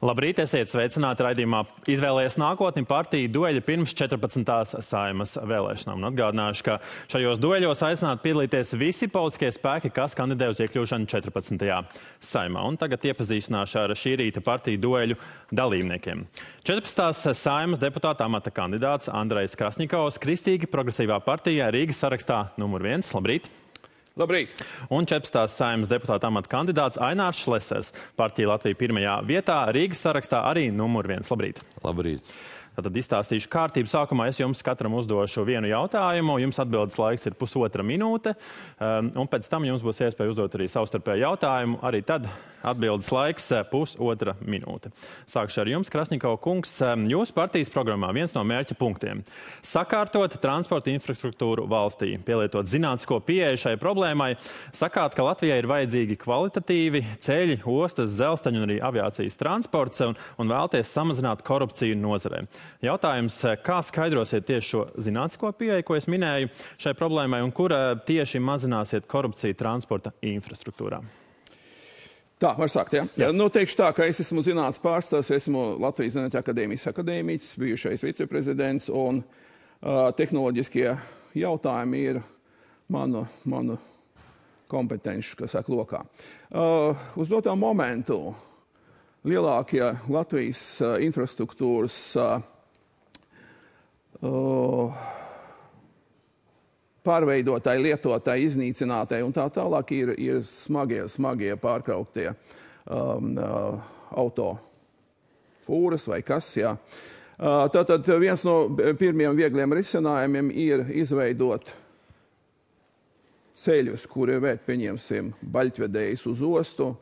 Labrīt, esiet sveicināti raidījumā Izvēlējies nākotni partiju dueļi pirms 14. Saeimas vēlēšanām. Un atgādināšu, ka šajos dueļos aicināti piedalīties visi politiskie spēki, kas kandidē uz iekļūšanu 14. Saeimā. Un tagad iepazīstināšu ar šī rīta partiju dueļu dalībniekiem. 14. Saeimas deputāta amata kandidāts Andrejs Krasņikovs, Kristīgi progresīvā partija Rīgas sarakstā numur 1. Labrīt! Labrīt! Un 14. Saeimas deputāta amata kandidāts Ainārs Šlesers, partija Latvija pirmajā vietā, Rīgas sarakstā arī numur 1. Labrīt! Labrīt! Tad izstāstīšu kārtību. Sākumā es jums katram uzdošu vienu jautājumu. Jums atbildes laiks ir 1,5 minūte. Un pēc tam jums būs iespēja uzdot arī savstarpēju jautājumu. Arī tad atbildes laiks 1,5 minūte. Sākšu ar jums, Krasņikova kungs. Jūsu partijas programmā viens no mērķa punktiem - sakārtot transporta infrastruktūru valstī, pielietot zinātnisko pieeju šai problēmai. Sakāt, ka Latvijai ir vajadzīgi kvalitatīvi ceļi, ostas, dzelzceļi un arī aviācijas transports un vēlties samazināt korupciju nozarē. Jautājums, kā skaidrosiet tieši šo zinātnisko pieeju, ko es minēju šai problēmai, un kur tieši mazināsiet korupciju transporta infrastruktūrā? Tā, var sākt, jā? Yes. Nu, teikšu tā, ka es esmu zinātnes pārstāvs, esmu Latvijas Zinātņu akadēmijas akadēmiķis, bijušais viceprezidents, un tehnoloģiskie jautājumi ir manu kompetenci, kas saka, lokā. Uz doto momentu lielākie Latvijas infrastruktūras pārveidotāji, lietotāji, iznīcinātāji un tā tālāk ir smagie pārkrauktie autofūras vai kas, jā. Tātad viens no pirmiem viegliem risinājumiem ir izveidot ceļus, kuri vērt, pieņemsim, baļķvedējus uz ostu.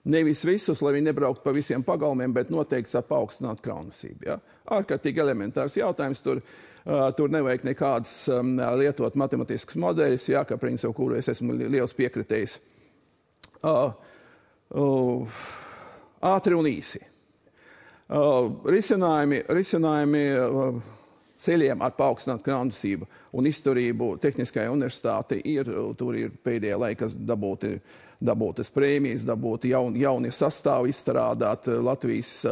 Nevis visus, lai viņi nebrauktu pa visiem pagalmiem, bet noteikti paaugstināt kraunasību. Ja? Ārkārtīgi elementārs jautājums. Tur nevajag nekādas lietot matematiskas modeļus, ja, ka principu, kuru es esmu liels piekritējis. Ātri un īsi. Risinājumi ceļiem ar paaugstinātu kraunasību un izturību Tehniskajai universitātei tur ir pēdējā laikā dabūtas prēmijas, dabūti jauni sastāvi izstrādāt. Latvijas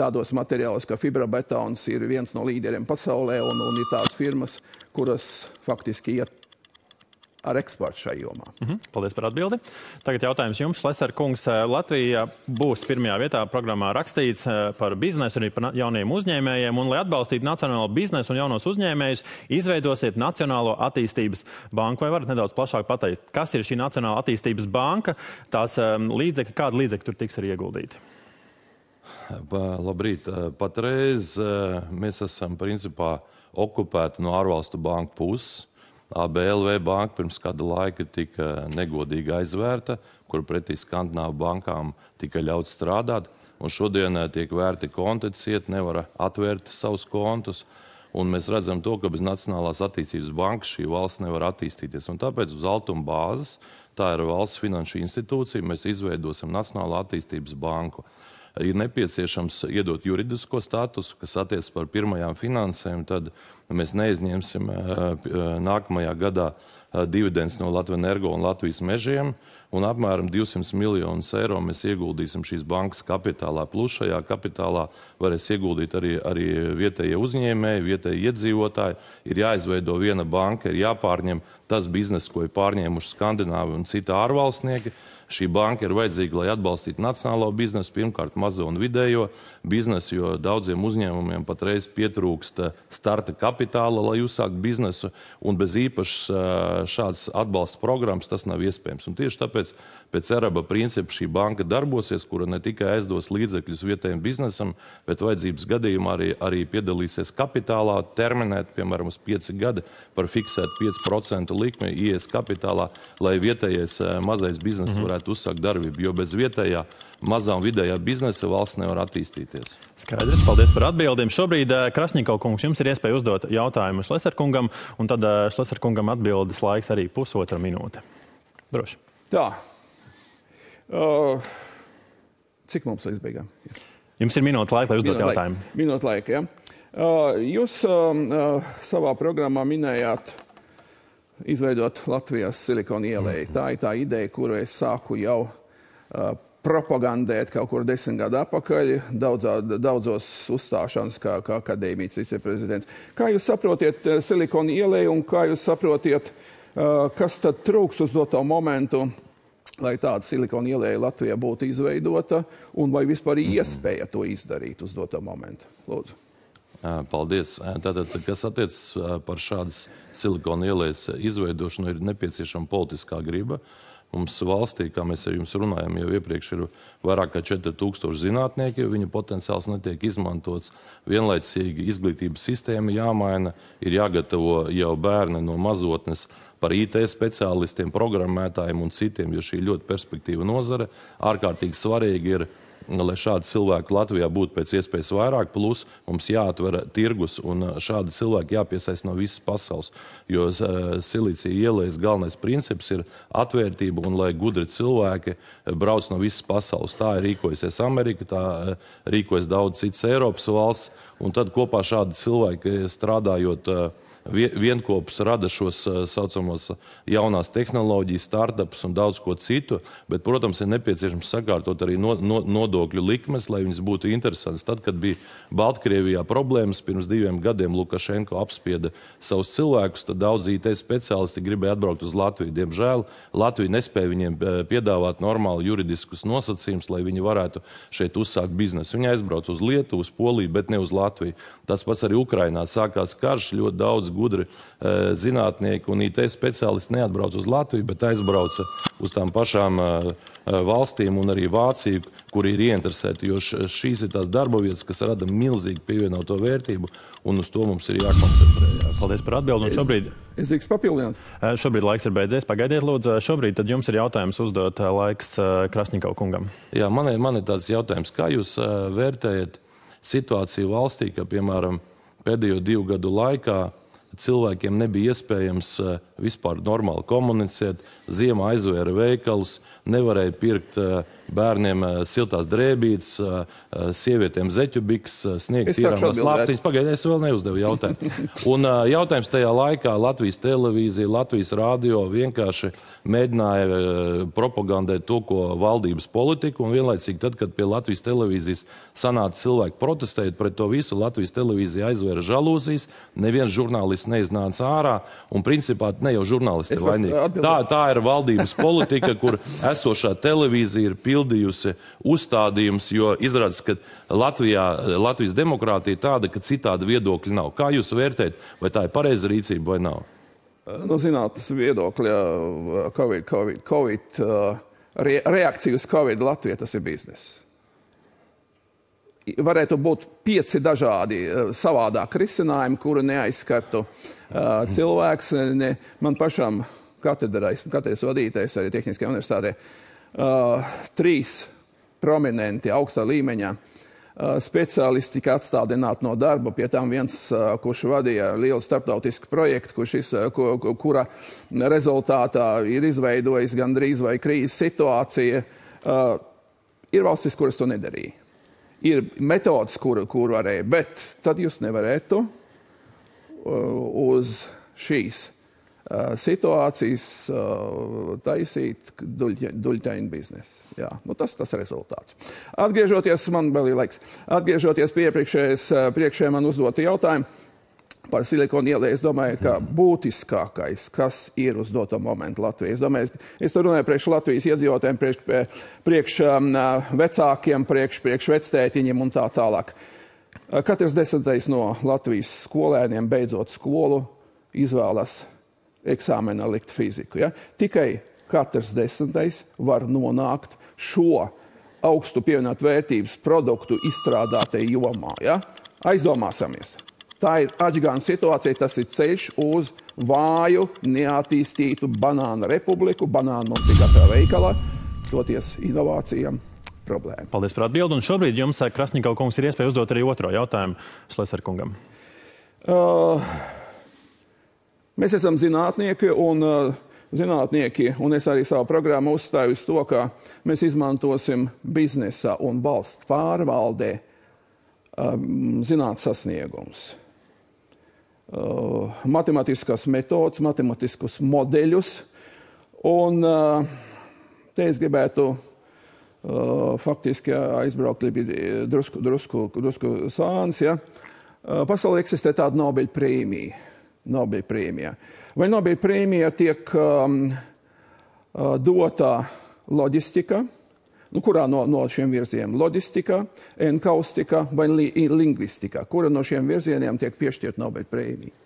tādos materiālos, kā fibrobetons, ir viens no līderiem pasaulē un ir tās firmas, kuras faktiski iet ar eksportu šai jomā. Paldies par atbildi. Tagad jautājums jums, Šleser kungs. Latvija būs pirmajā vietā programmā rakstīts par biznesu, arī par jauniem uzņēmējiem, un, lai atbalstītu nacionālo biznesu un jaunos uzņēmējus, izveidosiet Nacionālo attīstības banku. Vai varat nedaudz plašāk pateikt, kas ir šī Nacionālā attīstības banka, tās līdzekļi, kādi līdzekļi tur tiks arī ieguldīti? Labrīt. Patreiz mēs esam principā okupēti no ārvalstu banku puses. ABLV banka pirms kāda laika tika negodīgi aizvērta, kur pretī Skandināvu bankām tika ļauts strādāt. Un šodien tiek vērti konti, nevar atvērt savus kontus. Un mēs redzam to, ka bez Nacionālās attīstības bankas šī valsts nevar attīstīties. Un tāpēc uz altuma bāzes, tā ir valsts finanšu institūcija, mēs izveidosim Nacionālo attīstības banku. Ir nepieciešams iedot juridisko statusu, kas attiecas par pirmajām finansēm, tad mēs neizņemsim nākamajā gadā dividends no Latvenergo un Latvijas mežiem, un apmēram 200 miljonus eiro mēs ieguldīsim šīs bankas kapitālā. Plus šajā kapitālā varēs ieguldīt arī vietējie uzņēmēji, vietējie iedzīvotāji. Ir jāizveido viena banka, ir jāpārņem tas biznes, ko ir pārņēmuši Skandināvi un citi ārvalstnieki. Šī banka ir vajadzīga, lai atbalstītu nacionālo biznesu, pirmkārt mazo un vidējo biznesu, jo daudziem uzņēmumiem patreiz pietrūkst starta kapitāla, lai uzsākt biznesu, un bez īpašas šādas atbalsta programmas tas nav iespējams. Un tieši tāpēc pēc ERABA principa šī banka darbosies, kura ne tikai aizdos līdzekļus vietējiem biznesam, bet vajadzības gadījumā arī piedalīsies kapitālā, terminēt, piemēram, uz 5 gadi par fiksētu 5% likmi IES kapitālā, lai vietējais mazais biznes varētu uzsākt darbību, jo bez vietējā mazā un vidējā biznesa valsts nevar attīstīties. Skaidrs, paldies par atbildēm. Šobrīd, Krasņikov kungs, jums ir iespēja uzdot jautājumu Šleser kungam, un tad Šleser kungam atbildes laiks arī 1,5 minūte. Droši. Tā. Cik mums līdz beigām? Jums ir minūte laika, lai uzdot jautājumu. Minūte laika, jā. Jūs savā programmā minējāt izveidot Latvijas Silikona ielēju. Tā ir tā ideja, kuru es sāku jau propagandēt kaut kur 10 gadu atpakaļ, daudzos uzstāšanas kā akadēmijas viceprezidents. Kā jūs saprotiet Silikona ieleju un kā jūs saprotiet, kas tad trūks uz doto momentu, lai tāda Silikona ieleja Latvijā būtu izveidota un vai vispār iespēja to izdarīt uz doto momentu? Lūdzu. Paldies. Tātad, kas attiecas par šādas Silikona ielejas izveidošanu, ir nepieciešama politiskā griba. Mums valstī, kā mēs ar jums runājam, jau iepriekš ir vairāk kā 4000 zinātnieki, viņu potenciāls netiek izmantots. Vienlaicīgi izglītības sistēma jāmaina, ir jāgatavo jau bērni no mazotnes par IT speciālistiem, programmētājiem un citiem, jo šī ļoti perspektīva nozare. Ārkārtīgi svarīgi ir, lai šādi cilvēki Latvijā būtu pēc iespējas vairāk, plus mums jāatver tirgus un šādi cilvēki jāpiesaist no visas pasaules. Jo Silīcija ielejas galvenais princips ir atvērtība un lai gudri cilvēki brauc no visas pasaules. Tā ir rīkojusies Amerika, tā rīkojas daudz citas Eiropas valsts, un tad kopā šādi cilvēki strādājot vienkopus rada šos saucamos jaunās tehnoloģijas, startupus un daudz ko citu, bet, protams, ir nepieciešams sakārtot arī nodokļu likmes, lai viņas būtu interesantas. Tad, kad bija Baltkrievijā problēmas, pirms 2 gadiem Lukašenko apspieda savus cilvēkus, tad daudz IT speciālisti gribēja atbraukt uz Latviju. Diemžēl Latvija nespēja viņiem piedāvāt normāli juridiskus nosacījumus, lai viņi varētu šeit uzsākt biznesu. Viņi aizbrauc uz Lietuvu, uz Poliju, bet ne uz Latviju. Tas pats arī Ukrainā sākās karš, ļoti daudz gudri zinātnieki un IT speciālisti neatbrauc uz Latviju, bet aizbrauca uz tām pašām valstīm un arī Vāciju, kur ir ieinteresēti, jo šīs ir tās darba vietas, kas rada milzīgi pievienoto vērtību, un uz to mums ir jākoncentrējās. Paldies par atbildi. Šobrīd... Es drīkst papildināt. Šobrīd laiks ir beidzies. Pagaidiet, lūdzu. Šobrīd tad jums ir jautājums uzdot laiks Krasņikova kungam. Jā, man ir tāds jautājums. Kā jūs vērtējat situāciju valstī, ka, piemēram, pēdējo 2 gadu laikā cilvēkiem nebija iespējams vispār normāli komunicēt, ziemā aizvēra veikalus, nevarēja pirkt bērniem siltās drēbītes, sievietēm zeķubiks, sniegt tīrāmās lāptiņas. Pagaidiet, es vēl neuzdevu jautājumu. Un jautājums tajā laikā Latvijas televīzija, Latvijas radio vienkārši mēģināja propagandēt to, ko valdības politika, un vienlaicīgi tad, kad pie Latvijas televīzijas sanāca cilvēki protestēt pret to visu, Latvijas televīzija aizvēra žalūzijas, neviens žurnālists neiznāca ārā, un principā ne jau žurnālisti ir vainīgi. Tā ir valdības politika, kur esošā televīzija ir pildījusi uzstādījumus, jo izrādās, ka Latvijas demokrātija ir tāda, ka citāda viedokļa nav. Kā jūs vērtējat, vai tā ir pareiza rīcība vai nav? No zinātnes viedokļa Covid reakcija uz Covid Latvijā tas ir biznes. Varētu būt 5 dažādi savādāk risinājumi, kuri neaizskartu cilvēks. Man pašam katedras vadītājs arī Tehniskajā universitātē 3 prominenti augstā līmeņa speciālisti tika atstādināti no darba, pie tām viens, kurš vadīja lielu starptautisku projektu, kura rezultātā ir izveidojis gandrīz vai krīzes situācija. Ir valstis, kuras to nedarīja. Ir metodas, kur varēja, bet tad jūs nevarētu uz šīs situācijas taisīt duļķainu biznesu. Jā, tas rezultāts. Atgriežoties, man vēl ir laiks, atgriežoties pie priekšējā man uzdota jautājumu par Silikona ieleju, es domāju, ka būtiskākais, kas ir uz doto momentu Latvijā. Es runāju priekš Latvijas iedzīvotājiem, priekš vecākiem, priekš vectētiņiem un tā tālāk. Katrs 10. no Latvijas skolēniem beidzot skolu izvēlas eksāmenā likt fiziku. Ja? Tikai katrs 10. var nonākt šo augstu pievienot vērtības produktu izstrādātai jomā. Ja? Aizdomāsimies. Tā ir atžgāna situācija, tas ir ceļš uz vāju, neattīstītu banānu republiku. Banānu mums ir katrā veikalā, toties inovācijām problēma. Paldies par atbildi. Un šobrīd jums, Krasņikova kungs, ir iespēja uzdot arī otro jautājumu Šlesera kungam. Mēs esam zinātnieki, un es arī savu programmu uzstāju uz to, ka mēs izmantosim biznesa un valsts pārvaldē zinātnes sasniegums. Matemātiskas metodas, matematiskus modeļus. Un te es gribētu faktiski aizbraukti bija drusku sāns. Ja. Pasaulē eksistē tāda Nobel prēmija. Vai Nobel prēmija tiek dotā loģistika, kurā no šiem virzieniem loģistika, enkaustika vai lingvistika, kura no šiem virzieniem tiek piešķirt Nobel prēmija?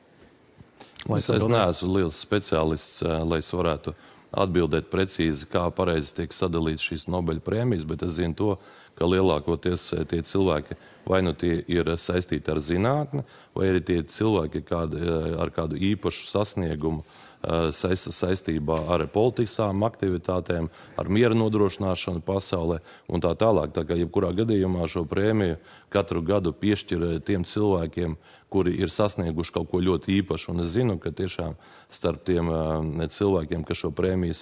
Es neesmu liels speciālists, lai es varētu atbildēt precīzi, kā pareizi tiek sadalīts šīs Nobel prēmijas, bet es zinu to, ka lielākoties tie cilvēki vai nu tie ir saistīti ar zinātni, vai arī tie cilvēki ar kādu īpašu sasniegumu saistībā ar politiskām aktivitātēm, ar miera nodrošināšanu pasaulē un tā tālāk. Tā kā jebkurā gadījumā šo prēmiju katru gadu piešķir tiem cilvēkiem, kuri ir sasnieguši kaut ko ļoti īpašu. Un es zinu, ka tiešām starp tiem cilvēkiem, kas šo prēmiju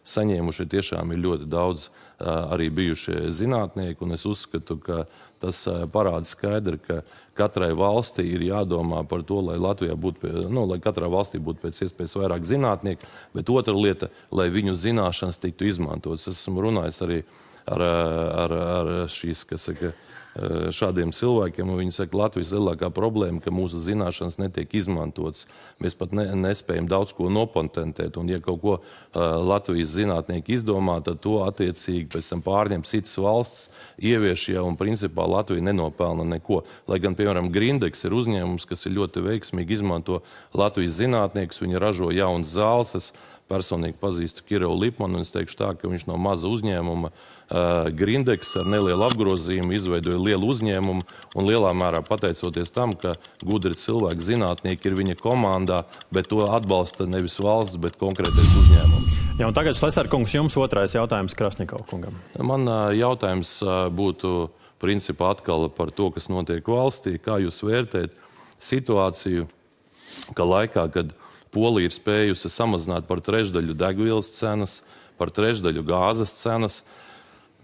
saņēmuši, tiešām ir ļoti daudz arī bijušie zinātnieki. Un es uzskatu, ka tas parāda skaidri, ka katrai valstī ir jādomā par to, lai Latvijā būtu, lai katrā valstī būtu pēc iespējas vairāk zinātnieku, bet otra lieta, lai viņu zināšanas tiktu izmantotas. Es esmu runājis arī ar šīs, kas saka, šādiem cilvēkiem, un viņi saka, Latvijas lielākā problēma, ka mūsu zināšanas netiek izmantotas. Mēs pat nespējam daudz ko nopatentēt, un ja kaut ko Latvijas zinātnieki izdomā, tad to attiecīgi pēc tam pārņem citas valsts, ievieš jau, un principā Latvija nenopelna neko. Lai gan, piemēram, Grindex ir uzņēmums, kas ir ļoti veiksmīgi izmanto Latvijas zinātniekus, viņi ražo jaunas zāles. Es personīgi pazīstu Kirilu Lipmanu, un es teikšu tā, ka viņš no maza uzņēmuma Grindex ar nelielu apgrozījumu izveidoja lielu uzņēmumu, un lielā mērā pateicoties tam, ka gudri cilvēki, zinātnieki ir viņa komandā, bet to atbalsta nevis valsts, bet konkrētais uzņēmums. Jā, un tagad, Šlesner kungs, jums otrais jautājums Krasņikov kungam. Man jautājums būtu principā atkal par to, kas notiek valstī. Kā jūs vērtējat situāciju, ka laikā, kad Polija ir spējusi samazināt par trešdaļu degvielas cenas, par trešdaļu gāzes cenas,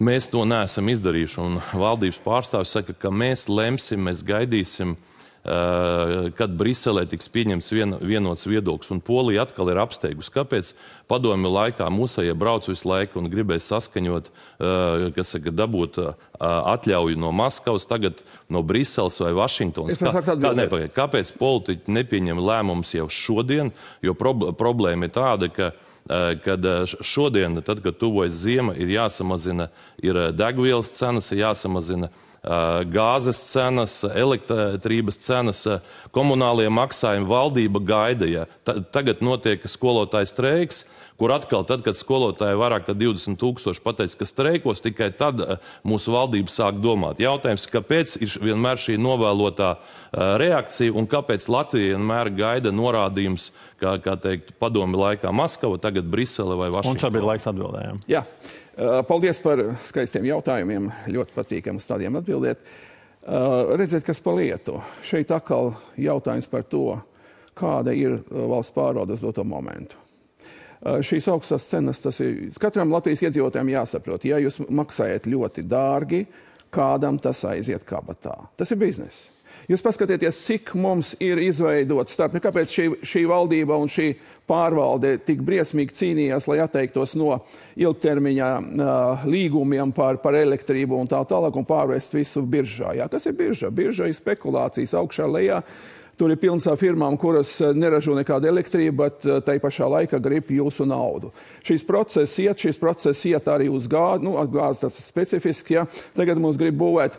mēs to neesam izdarījuši, un valdības pārstāvis saka, ka mēs lemsim, mēs gaidīsim, kad Briselē tiks pieņemts vienots viedoklis, un Polija atkal ir apsteigusi. Kāpēc padomju laikā mūsējie brauc visu laiku un gribēja saskaņot, kas saka, dabūt atļauju no Maskavas, tagad no Briseles vai Vašingtonas? Kāpēc politiķi nepieņem lēmumus jau šodien? Jo problēma ir tāda, kad šodien, tad, kad tuvojas ziema, ir jāsamazina degvielas cenas, ir jāsamazina gāzes cenas, elektrības cenas, komunālie maksājumi, valdība gaida. Ja. Tagad notiek skolotāju streiks, kur atkal tad, kad skolotāji vairāk kā 20 000 pateica, ka streikos, tikai tad mūsu valdība sāk domāt. Jautājums, kāpēc ir vienmēr šī novēlotā reakcija un kāpēc Latvija vienmēr gaida norādījums, kā teikt, padomi laikā Maskava, tagad Brisele vai Vašingtona? Un šobrīd laiks atbildējām. Jā. Paldies par skaistiem jautājumiem. Ļoti patīkami uz tādiem atbildēt. Redziet, kas pa lietu. Šeit atkal jautājums par to, kāda ir valsts pārvalde uz doto momentu. Šīs augstās cenas, tas ir katram Latvijas iedzīvotājiem jāsaprot. Ja jūs maksājat ļoti dārgi, kādam tas aiziet kabatā. Tas ir bizness. Jūs paskatieties, cik mums ir izveidots starp, kāpēc šī valdība un šī pārvalde tik briesmīgi cīnījās, lai atteiktos no ilgtermiņā līgumiem par elektrību un tā tālāk un pārvest visu biržā. Jā, kas ir birža? Birža ir spekulācijas augšā lejā. Tur ir pilns ar firmām, kuras neražo nekādu elektrību, bet tai pašā laikā grib jūsu naudu. Šis process iet arī uz gāzi, gāzi tas ir specifiski, ja. Tagad mums grib būvēt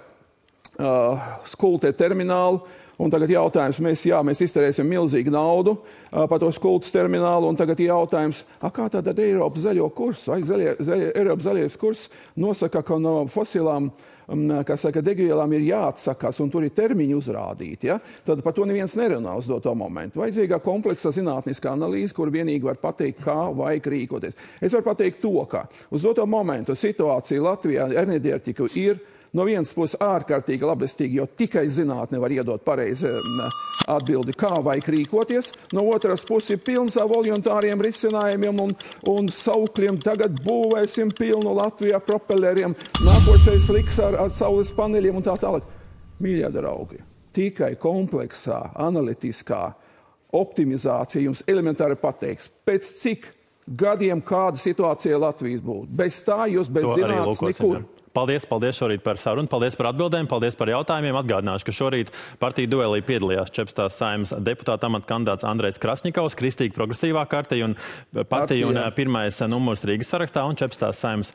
skultē terminālu, un tagad jautājums, mēs izterēsim milzīgu naudu par to skultas terminālu, un tagad jautājums, kā tātad Eiropas zaļo kursu? Eiropas zaļais kurs nosaka, ka no fosilām degvielām ir jāatsakās, un tur ir termiņi uzrādīti. Ja? Tad par to neviens nerunā uz doto momentu. Vajadzīgā kompleksa zinātniskā analīze, kur vienīgi var pateikt, kā vajag rīkoties. Es varu pateikt to, ka uz doto momentu situācija Latvijā enerģētika ir no vienas puses ārkārtīgi labestīgi, jo tikai zinātne var iedot pareizi atbildi, kā vajag rīkoties. No otras puses ir pilns ar voluntāriem risinājumiem un saukļiem. Tagad būvēsim pilnu Latvijā propelleriem, nākošais liks ar saules paneļiem un tā tālāk. Mīļie draugi, tikai kompleksā, analitiskā optimizācija jums elementāri pateiks, pēc cik gadiem, kāda situācija Latvijas būtu. Bez tā jūs bez zinātnes nekur. Paldies šorīt par sarunu, paldies par atbildēm, paldies par jautājumiem. Atgādināšu, ka šorīt partiju duelī piedalījās 14. Saeimas deputāta amata kandidāts Andrejs Krasņikovs, Kristīgi progresīvā partija un pirmais numurs Rīgas sarakstā, un 14. Saeimas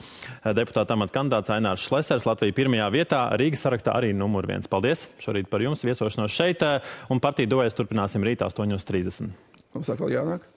deputāta amata kandidāts Ainārs Šlesers, Latvija pirmajā vietā, Rīgas sarakstā arī numur 1. Paldies šorīt par jums, viesošanos šeit, un partiju duelis turpināsim rīt 8:30. Mums atkal jānāk.